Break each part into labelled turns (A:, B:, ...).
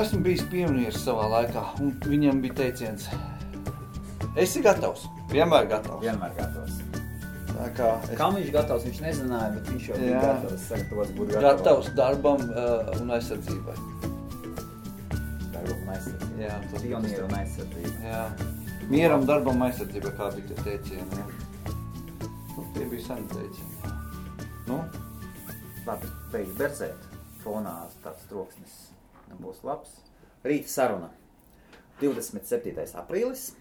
A: esmu bijis pionieris savā laikā, un viņam bija teiciens: esi gatavs, vienmēr gatavs.
B: Vienmēr gatavs.
A: Tā kā
B: Kam viņš gatavs, viņš nezināja, bet viņš jau bija gatavs, sagatavots būt
A: gatavs darbam un aizsardzībai.
B: Darbam un aizsardzībai.
A: Jā, tas
B: Pionieru un aizsardzībai.
A: Jā. Mieram, darbam, aizsardzībai, kā bija tie teicieni. Nu, tie bija seni teicieni. Nu?
B: Labi, beidz berzēt. Fonā tāds troksnis nebūs labs. Rīta saruna. 27. aprīlis.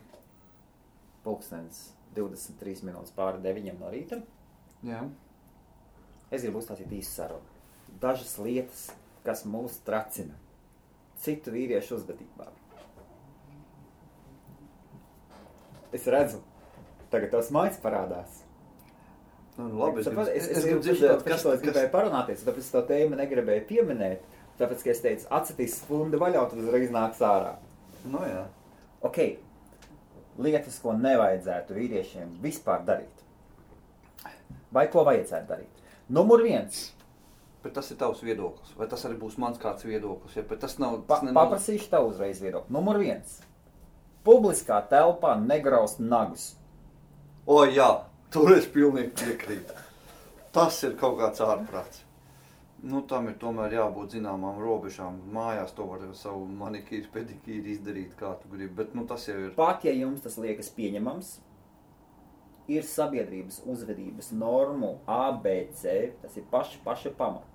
B: Pulkstens 23 minūtes pāri 9 no rīta.
A: Jā.
B: Es gribu uzstāstīt īstu sarunu. Dažas lietas, kas mūs tracina citu vīriešu uzvedībā. Es redzu, tagad tavs maids parādās.
A: Nu, labi,
B: es gribu dzirdēt, kas gribēju parunāties, tāpēc to tēmu negribēju pieminēt, tāpēc, ka es teicu, atcitīs spundi vaļā, tad uzreiz nāks ārā.
A: Nu jā.
B: Ok, lietas, ko nevajadzētu vīriešiem vispār darīt. Vai ko vajadzētu darīt? Numur 1.
A: Bet tas ir tavs viedoklis, vai tas arī būs mans kāds viedoklis, ja? Bet tas nav...
B: Paprasīšu tavu uzreiz viedokli. Numur 1. Publiskā telpā negraust nagus.
A: O jā, tur es pilnīgi piekrītu. Tas ir kaut kāds ārprāts. Nu, tam ir tomēr jābūt zināmām robežām. Mājās to var savu manikīru, pedikīru izdarīt, kā tu gribi, bet nu, tas jau ir...
B: Pat, ja jums tas liekas pieņemams, ir sabiedrības uzvedības normu ABC, tas ir paši pamati.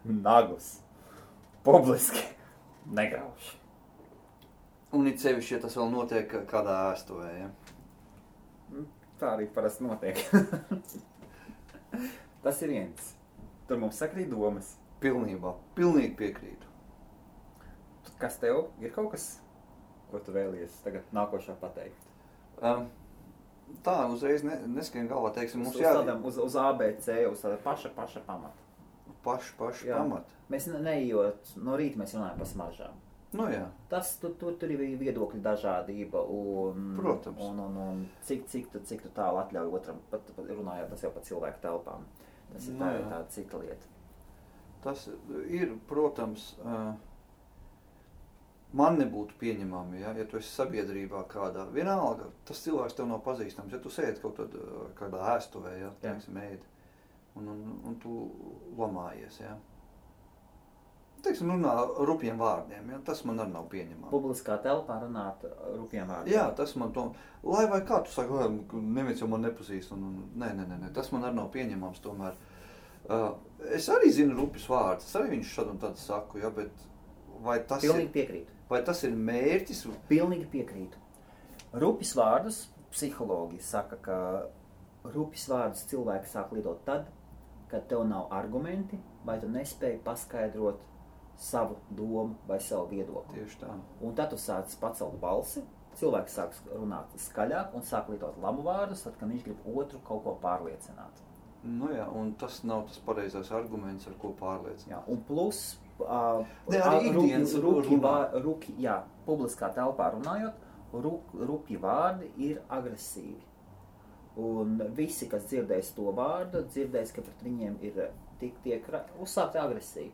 B: Nagus. Publiski. Negrauž.
A: Un it sevišķi, ja tas vēl notiek kādā ēstuvē, ja?
B: Tā arī parasti notiek. Tas ir viens. Tur mums sakrīt domas.
A: Pilnībā. Pilnīgi piekrītu.
B: Kas tev? Ir kaut kas, ko tu vēlies tagad nākošā pateikt?
A: Tā, uzreiz neskrien galvā, teiksim, mums
B: uz ABC, uz tāda paša pamata.
A: Paši pamata.
B: Mēs neejot, no rīta mēs runājam par smaržām.
A: Nu jā.
B: Tas, tur ir viedokļu dažādība un...
A: Protams.
B: Un cik tu tālu atļauj otram, pat runājot, tas jau par cilvēku telpām. Tas ir tāda cita lieta.
A: Tas ir, protams, man nebūtu pieņemami, ja tu esi sabiedrībā kādā. Vienalga, tas cilvēks tev nav pazīstams, ja tu sēdi kaut tad kādā ēstuvē, ja, teiksim, ēdi, un tu lamājies, ja. Teiksim, runā rupjiem vārdiem, ja, tas man arī nav pieņemami.
B: Publiskā telpā runāt rupjiem vārdiem.
A: Jā, tas man to, lai vai kā tu saki, neviens jau man nepazīst, nē, tas man arī nav pieņemams tomēr. Es arī zinu rupjus vārdus, es arī viņš šad un tad saku, ja, bet vai tas
B: Pilnīgi piekrītu.
A: Vai tas ir mērķis?
B: Pilnīgi piekrītu. Rupjus vārdus, psihologi saka, ka rupjus vārdus cilvēki sāk lietot tad, kad tev nav argumenti, vai tu nespēji paskaidrot savu domu vai savu viedokli.
A: Tieši tā.
B: Un tad tu sāc pacelt balsi, cilvēks sāks runāt skaļāk un sāk lietot lamu vārdus, tad, kad viņš grib otru kaut ko pārliecināt.
A: Nu jā, un tas nav tas pareizais arguments, ar ko pārliecināt.
B: Jā, un plus, publiskā telpā runājot, rupji vārdi ir agresīvi. Un visi, kas dzirdēs to vārdu, dzirdēs, ka pret viņiem ir tiek uzsākti agresīvi.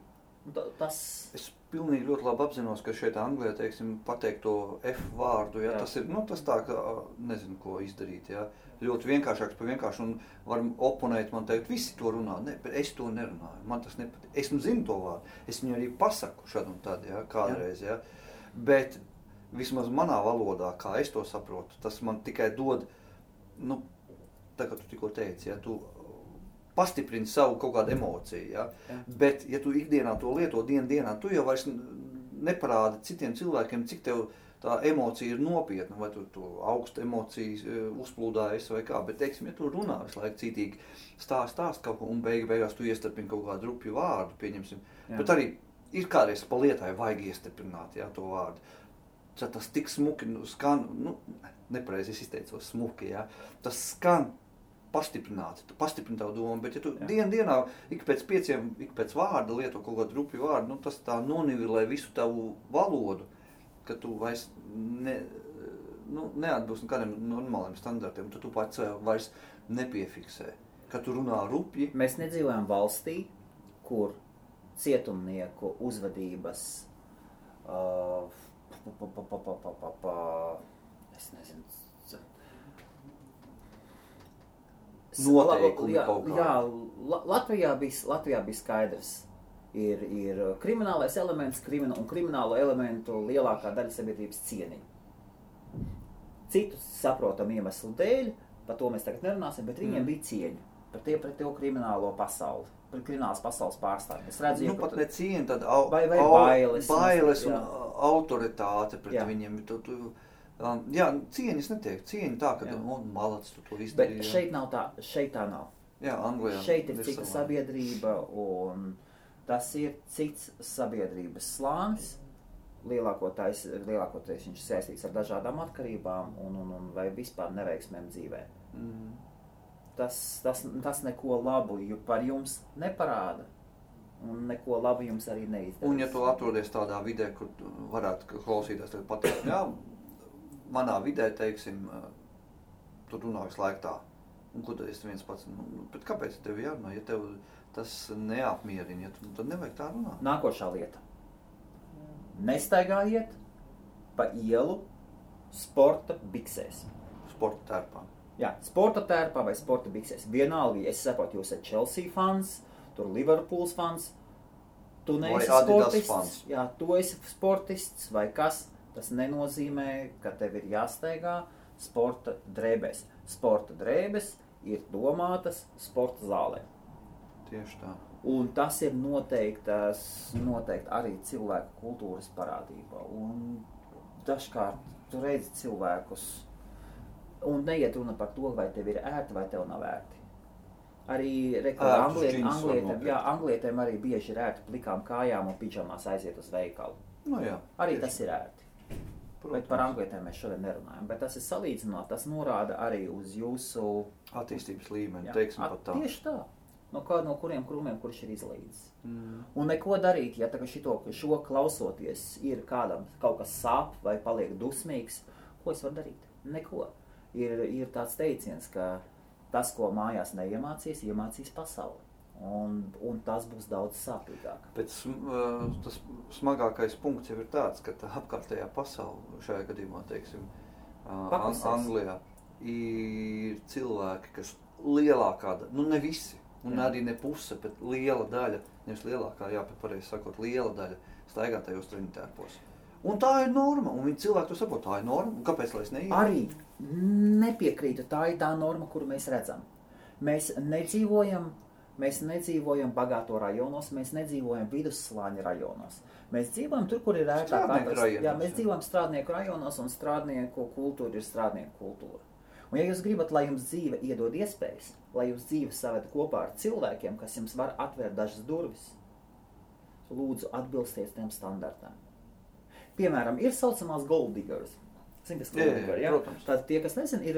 A: Es pilnīgi ļoti labi apzinos, ka šeit Anglijā, teiksim, pateikt to F vārdu, ja, tas ir, tas tā, ka nezinu, ko izdarīt, ja. Ļoti vienkāršāks par vienkāršu, un varam oponēt man teikt, visi to runā, ne, bet es to nerunāju, man tas nepatīk. Es zinu to vārdu, es viņu arī pasaku šad un tad, ja, kādreiz, ja. Bet vismaz manā valodā, kā es to saprotu, tas man tikai dod, tā kā tu tikko teici, ja, tu pastiprini savu kaut kādu emociju, ja? Bet, ja tu ikdienā to lieto dienā, tu jau vairs neparādi citiem cilvēkiem, cik tev tā emocija ir nopietna, vai tu augstu emocijas uzplūdājies vai kā, bet, teiksim, ja tu runā visu laiku cītīgi stāst kaut ko, un beigās tu iestarpini kaut kādu rupju vārdu, pieņemsim, bet arī ir kādreiz pa lietai vajag iestarpināt, ja, to vārdu. Tas tik smuki skan, nepareizi es izteicos smuki, ja, tas skan pastiprināti, tu pastiprini tavu domu, bet ja tu dienā ik pēc vārda lieto kaut kādu rupju vārdu, tas tā nonivilē visu tavu valodu, ka tu vairs neatbilst kādiem normāliem standartiem, tu pats vairs nepiefiksē, ka tu runā rupji.
B: Mēs nedzīvojam valstī, kur cietumnieku uzvedības, es nezinu,
A: noteikumi kaut kā.
B: Jā, Latvijā bija skaidrs. Ir kriminālais elements un kriminālo elementu lielākā daļa sabiedrības cieniņa. Citus saprotam iemeslu dēļ, par to mēs tagad nerunāsim, bet viņiem bija cieņa pret to kriminālo pasauli, pret kriminālas pasaules pārstāvjiem. Es redzu,
A: pat ne cieņa, tad
B: vai bailes
A: un autoritāte pret viņiem. Jā, cieņas netiek. Cieņa tā, ka malacis tu to izdarīji.
B: Bet šeit tā nav.
A: Jā, Anglijā.
B: Šeit ir cita sabiedrība un tas ir cits sabiedrības slānis. Lielākoties viņš saistīts ar dažādām atkarībām un vai vispār neveiksmēm dzīvē. Tas neko labu par jums neparāda un neko labu jums arī neizdarīs.
A: Un ja tu atrodies tādā vidē, kur varētu klausīties tagad pateikt, jā, manā vidē, teiksim, tu runā visu laiku tā. Un ko tad es viens pats, bet kāpēc tev jārunā, ja tev tas neapmierina, tad nevajag tā runāt.
B: Nākošā lieta. Nestaigājiet pa ielu sporta biksēs.
A: Sporta tērpā.
B: Jā, sporta tērpā vai sporta biksēs. Vienalga, es saprotu, jūs esat Chelsea fans, tur Liverpools fans, tu neesi sportists. Jā, tu esi sportists vai kas. Tas nenozīmē, ka tev ir jāstaigā sporta drēbēs. Sporta drēbes ir domātas sporta zālē.
A: Tieši tā.
B: Un tas ir noteikti arī cilvēku kultūras parādība. Un dažkārt tu redzi cilvēkus, un neiet runa par to, vai tev ir ērti vai tev nav ērti. Arī anglietēm arī bieži ir ērti plikām kājām un pidžamās aiziet uz veikalu.
A: No jā,
B: arī tas ir ērti. Protams. Bet par anglietēm mēs šodien nerunājam. Bet tas ir salīdzināt, tas norāda arī uz jūsu
A: attīstības līmeni, teiksim pat tā.
B: Tieši tā. No kuriem krūmiem, kurš ir izlīdzis. Un neko darīt, ja šo klausoties ir kādam kaut kas sāp vai paliek dusmīgs, ko es varu darīt? Neko. Ir tāds teiciens, ka tas, ko mājās neiemācīs, iemācīs pasauli. Un tas būs daudz sāpīgāk.
A: Bet tas smagākais punkts jau ir tāds, ka tā apkārtējā pasaule, šajā gadījumā, teiksim, Anglijā, ir cilvēki, kas lielākā daļa, ne visi, un arī ne puse, bet liela daļa, nevis lielākā, bet pareizi sakot, liela daļa staigā tajos treniņtērpos. Un tā ir norma, un viņi cilvēki to saprot, tā ir norma, un kāpēc, lai es neietu?
B: Arī nepiekrītu, tā ir tā norma, kuru mēs redzam. Mēs nedzīvojam bagāto rajonos, mēs nedzīvojam vidusslāņa rajonos. Mēs dzīvojam tur, kur ir ērtāk atrast. Jā, mēs dzīvojam strādnieku rajonos, un strādnieku kultūra ir strādnieku kultūra. Un ja jūs gribat, lai jums dzīve iedod iespējas, lai jūs dzīve saved kopā ar cilvēkiem, kas jums var atvērt dažas durvis, lūdzu atbilstiet tiem standartām. Piemēram, ir saucamās gold diggers. Zini, kas gold digger, jā? Tātad tie, kas nezin, ir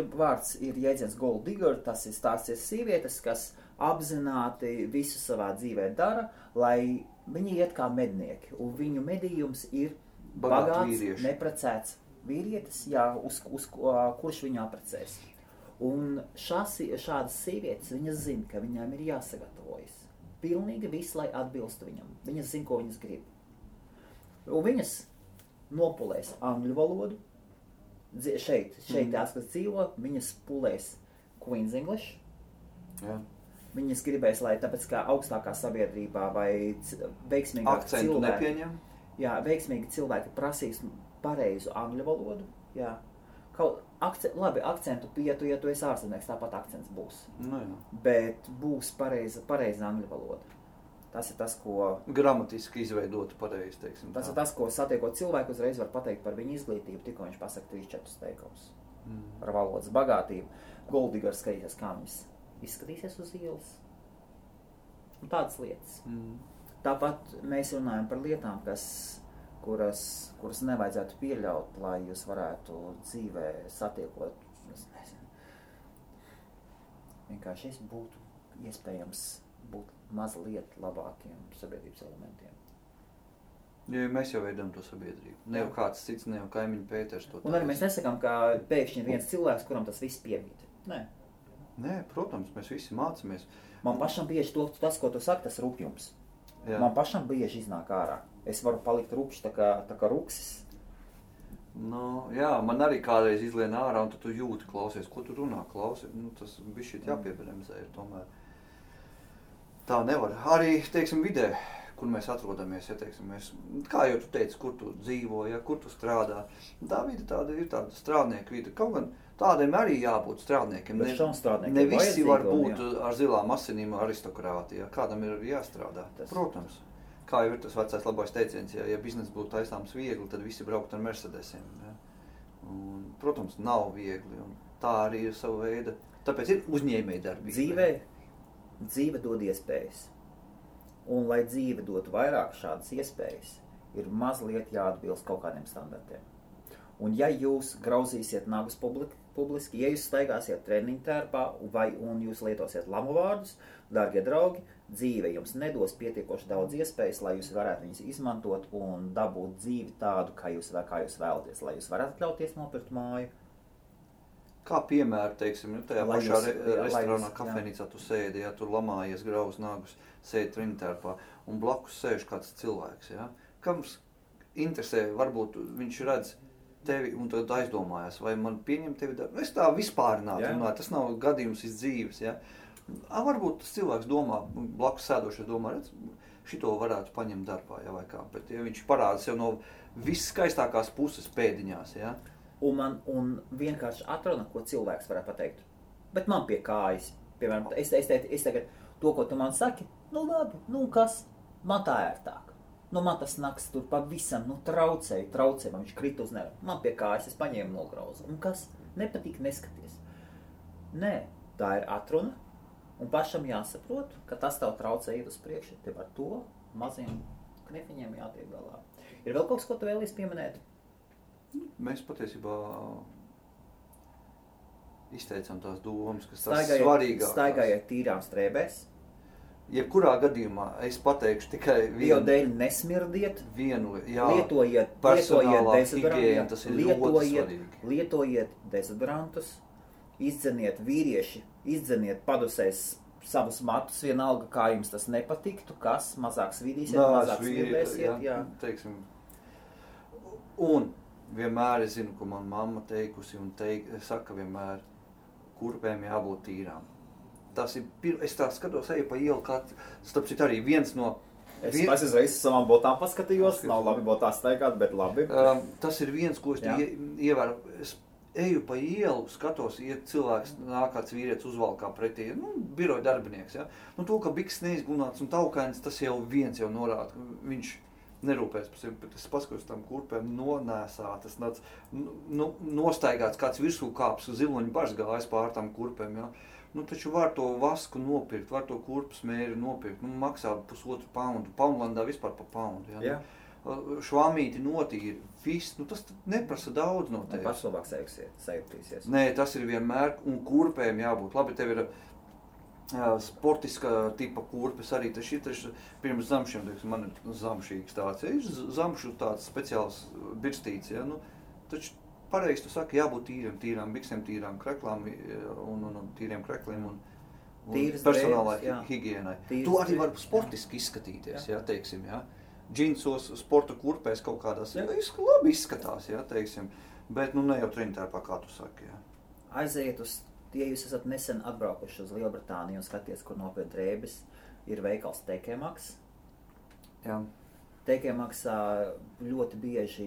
B: jēdziens gold digger, tas ir stāsties sievietes, kas apzināti visu savā dzīvē dara, lai viņi iet kā mednieki. Un viņu medījums ir bagāts, neprecēts vīrietis, kurš viņu apprecēs. Un šādas sievietes, viņas zina, ka viņām ir jāsagatavojas. Pilnīgi viss, lai atbilstu viņam. Viņas zina, ko viņas grib. Un viņas nopulēs angļu valodu. Šeit tās, kas dzīvo, viņas pulēs Queen's English.
A: Jā.
B: Viņas gribēs, lai tāpēc kā augstākā sabiedrībā vai veiksmīgāk
A: akcentu nepieņem.
B: Jā, veiksmīgi cilvēki prasīs pareizu angļu valodu. Jā. Akcentu pietu, ja tu esi ārzemnieks, tāpat akcents būs.
A: No, jā.
B: Bet būs pareiza angļu valoda. Tas ir tas, ko...
A: Gramatiski izveidot pareizi, teiksim.
B: Tas ir tas, ko satiekot cilvēku, uzreiz var pateikt par viņu izglītību, tikko viņš pasaka 3-4 teikumus. Par valodas bagātību. Goldigers skatīsies, kā viņas izskatīsies uz ielas. Un tādas lietas. Tāpat mēs runājam par lietām, kuras nevajadzētu pieļaut, lai jūs varētu dzīvē satiekot, es nezinu. Vienkārši es būtu iespējams būt mazliet labākiem sabiedrības elementiem.
A: Ja mēs jau veidam to sabiedrību. Ne jau kāds cits, ne jau kaimiņu Pēters to.
B: Un arī mēs nesakām, ka pēkšņi ir viens cilvēks, kuram tas viss piemīt.
A: Nē, protams, mēs visi mācamies.
B: Man pašam bieži tas, ko tu saki, tas rupjums.
A: Jā.
B: Man pašam bieži iznāk ārā. Es varu palikt rupšs tā kā ruksis.
A: Nu, jā, man arī kādreiz izlien ārā, un tad tu jūti, klausies, ko tu runā, klausies. Nu, tas bišķīt jāpiebremzē ir tomēr. Tā nevar. Arī, teiksim, vidē, kur mēs atrodamies, ja, teiksim, kā jau tu teici, kur tu dzīvo, ja, kur tu strādā. Tā vide tāda ir tāda strādnieka vide. Kaut gan tādiem arī jābūt strādniekiem. Ne visi var būt ar zilām asinīm aristokrāti, ja. Kādam ir jāstrādā. Protams. Kā jau ir tas vecais labais teiciens, ja bizness būtu taisāms viegli, tad visi braukt ar Mercedesiem. Ja. Un, protams, nav viegli, un tā arī ir sava veida. Tāpēc ir uzņēmēji darbība.
B: Dzīve dod iespējas. Un, lai dzīve dotu vairāk šādas iespējas, ir mazliet jāatbilst kaut kādiem standartiem. Un, ja jūs grauzīsiet nagus publiski, ja jūs staigāsiet treniņu tērpā un jūs lietosiet lamu vārdus, dārgie draugi, dzīve jums nedos pietiekoši daudz iespējas, lai jūs varētu viņus izmantot un dabūt dzīvi tādu, kā jūs vēlaties, lai jūs varētu atļauties nopirkt māju.
A: Kā piemēru, teiksim, tajā pašā restorānā, kafejnīcā tu sēdi, ja tur lamājies grauz nagus, sēdi treniņtērpā un blakus sēž kāds cilvēks, ja? Kams interesē, varbūt viņš redz tevi un tad aizdomājās, vai man pieņem tevi darbu. Es tā vispārināt runāju, tas nav gadījums iz dzīves, ja? Varbūt tas cilvēks domā, blakus sēdošais domā, redz, šito varētu paņemt darbā, ja, vai kā, bet ja viņš parāda sev no visskaistākās puses pēdiņās, ja?
B: Un vienkārši atruna, ko cilvēks varētu pateikt. Bet man pie kājas, piemēram, es tagad to, ko tu man saki, nu labi, nu kas, man tā ērtāk. Nu man tas naks tur pavisam, traucēja, man viņš krita uz nevi. Man pie kājas, es paņēmu nograuzu. Un kas, nepatīk, neskaties. Nē, tā ir atruna, un pašam jāsaprot, ka tas tev traucē iet uz priekšu, tev ar to maziem knefiņiem jātiek galā. Ir vēl kaut kas, ko tu vēlies pieminēt?
A: Mēs patiesībā izteicām tās domas, kas tās svarīgākās.
B: Staigājiet tīrām strēbēs.
A: Jebkurā gadījumā es pateikšu tikai vienu.
B: Bio dēļ nesmirdiet. Lietojiet
A: higiēna, tas ir ļoti svarīgi.
B: Lietojiet dezodrantus. Izdzeniet vīrieši, padusēs savus matus, vienalga, kā jums tas nepatiktu, kas mazāk svidīsiet, mazāk smirdēsiet. Jā.
A: Teiksim. Un vienmēr es zinu, ko man mamma teikusi un saka vienmēr, kurpēm jābūt tīrām. Tas ir, es tā skatos, eju pa ielu, starp citu arī viens no...
B: Es reizes savām botām paskatījos, nav labi botā staigāt, bet labi.
A: Tas ir viens, ko es ievēru. Es eju pa ielu, skatos, iet cilvēks, nākāds vīrietis uzvalkā pretī, biroja darbinieks, ja. To, ka biks neizgunāts un taukains, tas jau viens jau norāda, viņš nerūpēs par sevi, bet es paskatos tam kurpēm nonēsātas, nostaigāts kāds virsū kāps, ziloņu bažs gājas pār tam kurpēm, ja. Taču var to vasku nopirkt, var to kurpes mēri nopirkt, maksā $1,5 poundu, Poundlandā vispār pa poundu, ja. Švamīti notīri, viss, tas neprasa daudz no tevis.
B: Pašlabāk sajūtīsies.
A: Nē, tas ir vienmēr, un kurpēm jābūt. Labi, tev ir sportiska tipa kurpes arī, tas ir pirms zamšiem, man ir zamšīgs tāds, ir zamšu tāds speciāls birstīts, ja, taču pareizi tu saki, jābūt tīrām biksēm, tīrām kreklām un tīriem krekliem un personālai higienai. Tu arī vari sportiski izskatīties, ja, teiksim, ja. Džinsos, sporta kurpēs kaut kādās, labi izskatās, ja, teiksim, bet ne jau treniņtērpā, kā tu saki, ja.
B: Aiziet ja jūs esat nesen atbraukuši uz Lielbritāniju un skaties, kur nopirkt drēbes, ir veikals TK Maxx.
A: Jā.
B: TK Maxxā ļoti bieži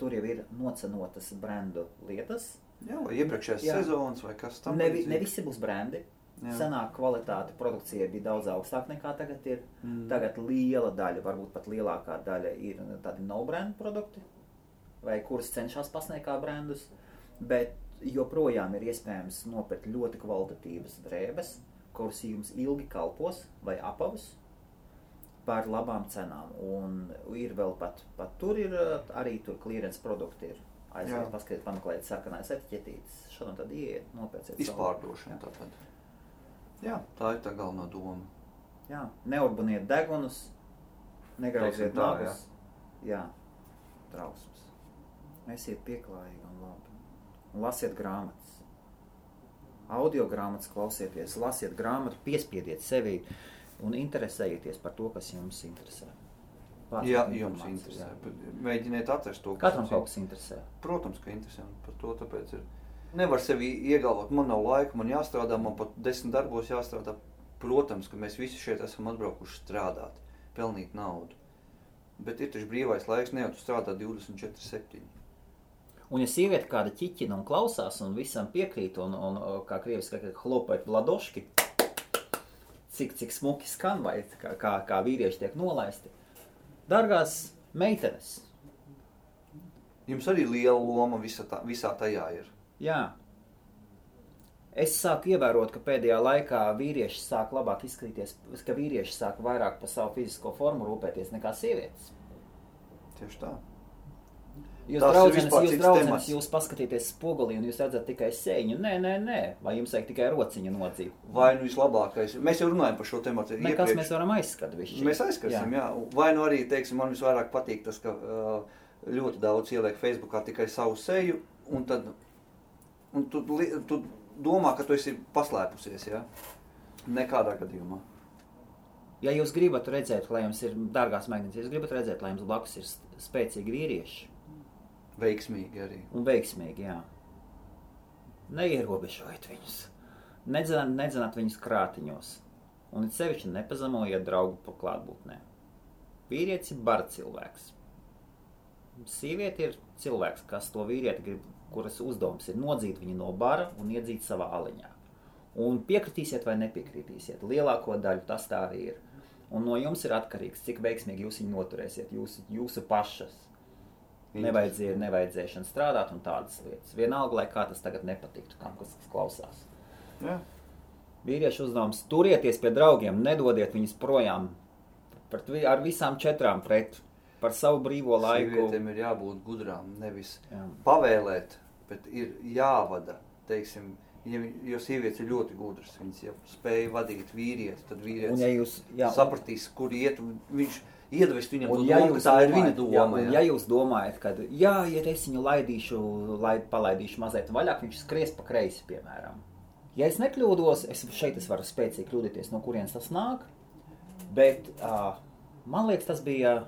B: tur jau ir nocenotas brendu lietas.
A: Jā, vai iepriekšējās sezonas vai kas tam?
B: Ne visi būs brendi. Senāk kvalitāte produkcija bija daudz augstāk nekā tagad ir. Tagad liela daļa, varbūt pat lielākā daļa ir tādi no-brand produkti, vai kuras cenšas pasniegt kā brandus, bet joprojām ir iespējams nopirkt ļoti kvalitatīvas drēbes, kuras jums ilgi kalpos vai apavus par labām cenām. Un ir vēl pat tur ir arī tur clearance produkti ir. Aiziet, paskatiet, pameklēt sarkanais etiķetītes, šodien tad ieiet, nopērciet savu.
A: Izpārdošana tātad. Jā, tā ir tā galvenā doma.
B: Jā, neurbaniet degunus, negrauziet nagus. Jā, trausmas. Esiet pieklājīgi un labi. Un lasiet grāmatas. Audio grāmatas klausieties, lasiet grāmatu, piespiediet sevi. un interesējieties par to, kas jums interesē.
A: Jā, jums interesē. Mēģiniet atrast to,
B: Katram kaut kas interesē.
A: Protams, ka interesē. Par to tāpēc ir. Nevar sevi iegalvot, man nav laika, man jāstrādā, man pat 10 darbos jāstrādā. Protams, ka mēs visi šeit esam atbraukuši strādāt, pelnīt naudu. Bet ir taču brīvais laiks, ne jau tu strādā 24/7.
B: Un ja sieviete kāda ķiķina un klausās un visam piekrīt un kā krieviski, hlopēt vladoški, cik smuki skan vai kā vīrieši tiek nolaisti. Dargās meitenes.
A: Jums arī liela loma visā tajā ir.
B: Jā. Es sāku ievērot, ka pēdējā laikā vīrieši sāk labāk izskatīties, ka vīrieši sāk vairāk par savu fizisko formu rūpēties nekā sievietes.
A: Tieši tā.
B: Jūs draudzenes, jūs paskatīties spogulī un jūs redzat tikai sēņu. Nē. Vai jums vajag tikai rociņu nodzīv?
A: Vai nu vislabākais. Mēs jau runājam par šo tematu.
B: Nekas mēs varam aizskat višķi.
A: Mēs aizskasim, jā. Vai nu arī, teiksim, man visvairāk patīk tas, ka ļoti daudz ieliek Facebookā tikai savu seju, un tad tu domā, ka tu esi paslēpusies, jā? Nekādā gadījumā.
B: Ja jūs gribat redzēt, lai jums ir, dārgās meitenes, ja jūs gribat redzēt, lai jums blakus ir spēcīgi vīrieši.
A: Veiksmīgi arī.
B: Un veiksmīgi, jā. Neierobežojiet viņus. Nedzenat viņus krātiņos. Un it sevišķi nepazemojiet draugu pa klātbūtnē. Vīrietis ir bara cilvēks. Sīviete ir cilvēks, kas to vīrieti grib, kuras uzdevums ir nodzīt viņu no bara un iedzīt savā aliņā. Un piekritīsiet vai nepiekritīsiet. Lielāko daļu tas tā arī ir. Un no jums ir atkarīgs, cik veiksmīgi jūs viņu noturēsiet, jūsu pašas. Nevajadzēšana strādāt un tādas lietas. Vienalga, lai kā tas tagad nepatiktu, kam kas klausās.
A: Jā.
B: Vīriešu uzdevums turieties pie draugiem, nedodiet viņus projām ar visām 4 pret par savu brīvo laiku.
A: Sievietēm ir jābūt gudrām, nevis pavēlēt, bet ir jāvada, teiksim, jo sievietes ir ļoti gudras, viņas jau spēja vadīt vīrieti, tad vīrietis sapratīs, kur iet, viņš iedvest viņam to domu, ka tā ir viņa doma.
B: Un ja jūs domājat, ka ja es viņu palaidīšu mazliet vaļāk, viņš skries pa kreisi, piemēram. Ja es nekļūdos, šeit es varu spēcīgi kļūdīties, no kurienes tas nāk, bet man liekas, tas bija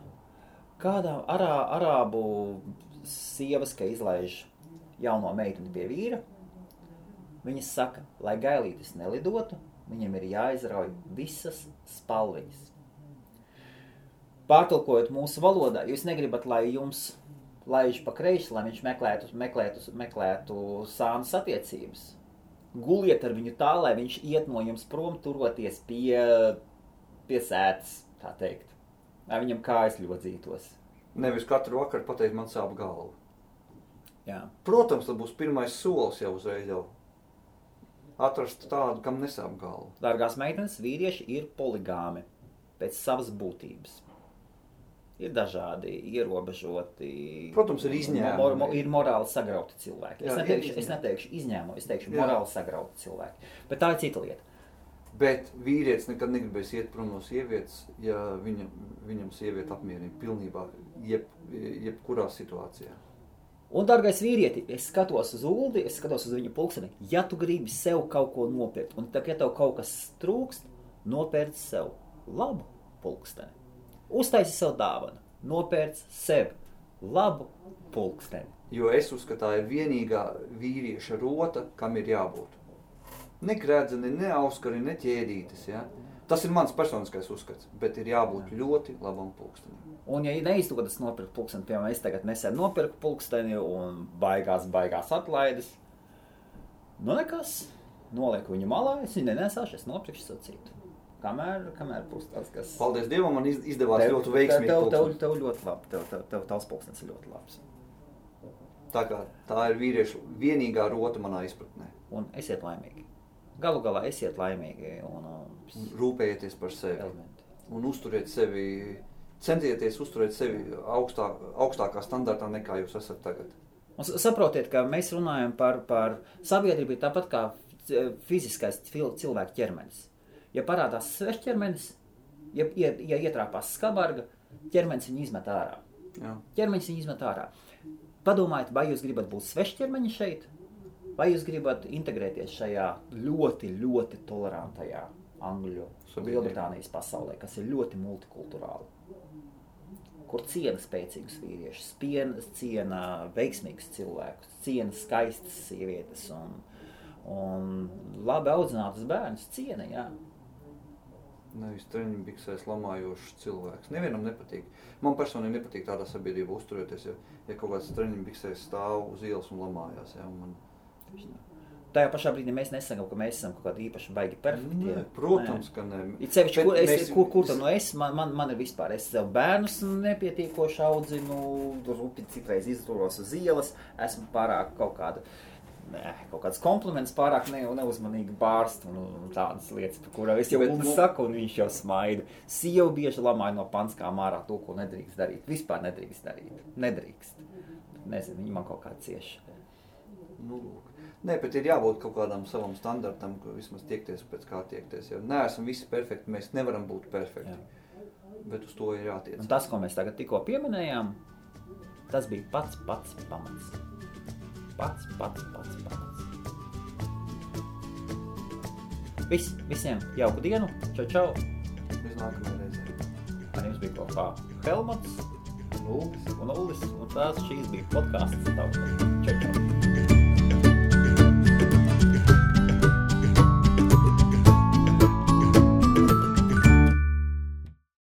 B: kādā arābu sievas, ka izlaiž jauno meiteni pie vīra. Viņas saka, lai gailītis nelidotu, viņam ir jāizrauj visas spalviņas. Pārtulkojot mūsu valodā, jūs negribat, lai jums laiž pa kreisi, lai viņš meklētu sānas attiecības. Guliet ar viņu tā, lai viņš iet no jums prom, turoties pie sētas, tā teikt. Lai viņam kājas ļodzītos.
A: Nevis katru vakaru pateikt, man sāp galva.
B: Jā.
A: Protams, tas būs pirmais solis jau uzreiz jau. Atrast tādu, kam nesāp galva.
B: Dārgās meitenes, vīrieši ir poligāmi pēc savas būtības. Ir dažādi ierobežoti.
A: Protams, ir izņēmumi.
B: Ir morāli sagrauti cilvēki. Es neteikšu izņēmumu, es teikšu morāli sagrauti cilvēki. Bet tā ir cita lieta.
A: Bet vīrietis nekad negribēs iet prom no sievietes, ja viņam sieviete apmierina pilnībā jebkurā situācijā.
B: Un, dārgais vīrieti, es skatos uz Uldi, es skatos uz viņu pulksteni. Ja tu gribi sev kaut ko nopirkt, un ja tev kaut kas trūkst, nopērc sev labu pulksteni. Uztaisi sev dāvanu, nopērc sev labu pulksteni.
A: Jo es uzskatu, tā ir vienīgā vīrieša rota, kam ir jābūt. Ne gredzeni, ne auskari, ne ķēdītes, ja? Tas ir mans personiskais uzskats, bet ir jābūt ļoti labam pulkstenim.
B: Un ja neizdodas nopirkt pulksteni, piemēram, es tagad nesen nopirku pulksteni un baigās atlaides, nu nekas, nolieku viņu malā, es viņu nenesāšu, es nopirkšu savu citu. Kamēr būs tas, kas...
A: Paldies Dievam, man izdevās ļoti veiksmīgi pulksteni.
B: Tev ļoti labi, tavs pulkstenis ir ļoti labs.
A: Tā ir vīriešu vienīgā rota manā izpratnē.
B: Un esiet laimīgi. Galu galā esiet laimīgi un
A: rūpējieties par sevi.
B: Elementi.
A: Un centieties uzturēt sevi augstākā standartā nekā jūs esat tagad.
B: Un saprotiet, ka mēs runājam par sabiedrību tāpat kā fiziskais cilvēka ķermenis. Ja parādās svešķermenis, ja ietrāpās skabarga, ķermenis viņu izmet ārā.
A: Jā.
B: Ķermenis viņu izmet ārā. Padomājiet, vai jūs gribat būt svešķermeņi šeit, vai jūs gribat integrēties šajā ļoti, ļoti tolerantajā Angļu, Lielbritānijas pasaulē, kas ir ļoti multikulturāli. Kur ciena spēcīgus vīriešus, ciena veiksmīgus cilvēkus, ciena skaistas sievietes un labi audzinātus bērnus ciena, jā.
A: Nevis treņbiksēs lamājošs cilvēks. Nevienam nepatīk. Man personīgi nepatīk tādā sabiedrībā uzturēties, ja kaut kāds treņbiksēs stāv uz ielas un lamājās. Ja, un
B: Tajā pašā brīdī mēs nesakām, ka mēs esam kaut kādi īpaši baigi perfekti.
A: Nē, protams, ka ne.
B: It sevišķi, kur tad no man ir vispār, es sev bērnus nepietiekoši audzinu, rupi citreiz izturos uz ielas, esmu pārāk kaut kāds kompliments pārāk neuzmanīgi bārst un tādas lietas, par kurām es jau saku un viņš jau smaida. Sieva bieži lamāja no panskām ārā to, ko nedrīkst darīt. Vispār nedrīkst darīt. Nedrīkst. Nezinu, viņi man kaut kā cieši.
A: Nu, nē, bet ir jābūt kaut kādam savam standartam, ka vismaz tiekties pēc kā tiekties. Ja neesam visi perfekti, mēs nevaram būt perfekti. Jā. Bet uz to ir jātiec.
B: Un tas, ko mēs tagad tikko pieminējām, tas bija pats pamats. Pats. Visiem jauku dienu. Čau.
A: Līdz nākamajai reizei.
B: Ar jums bija kopā Helmuts un Ullis. Un šīs bija podcasts. Čau.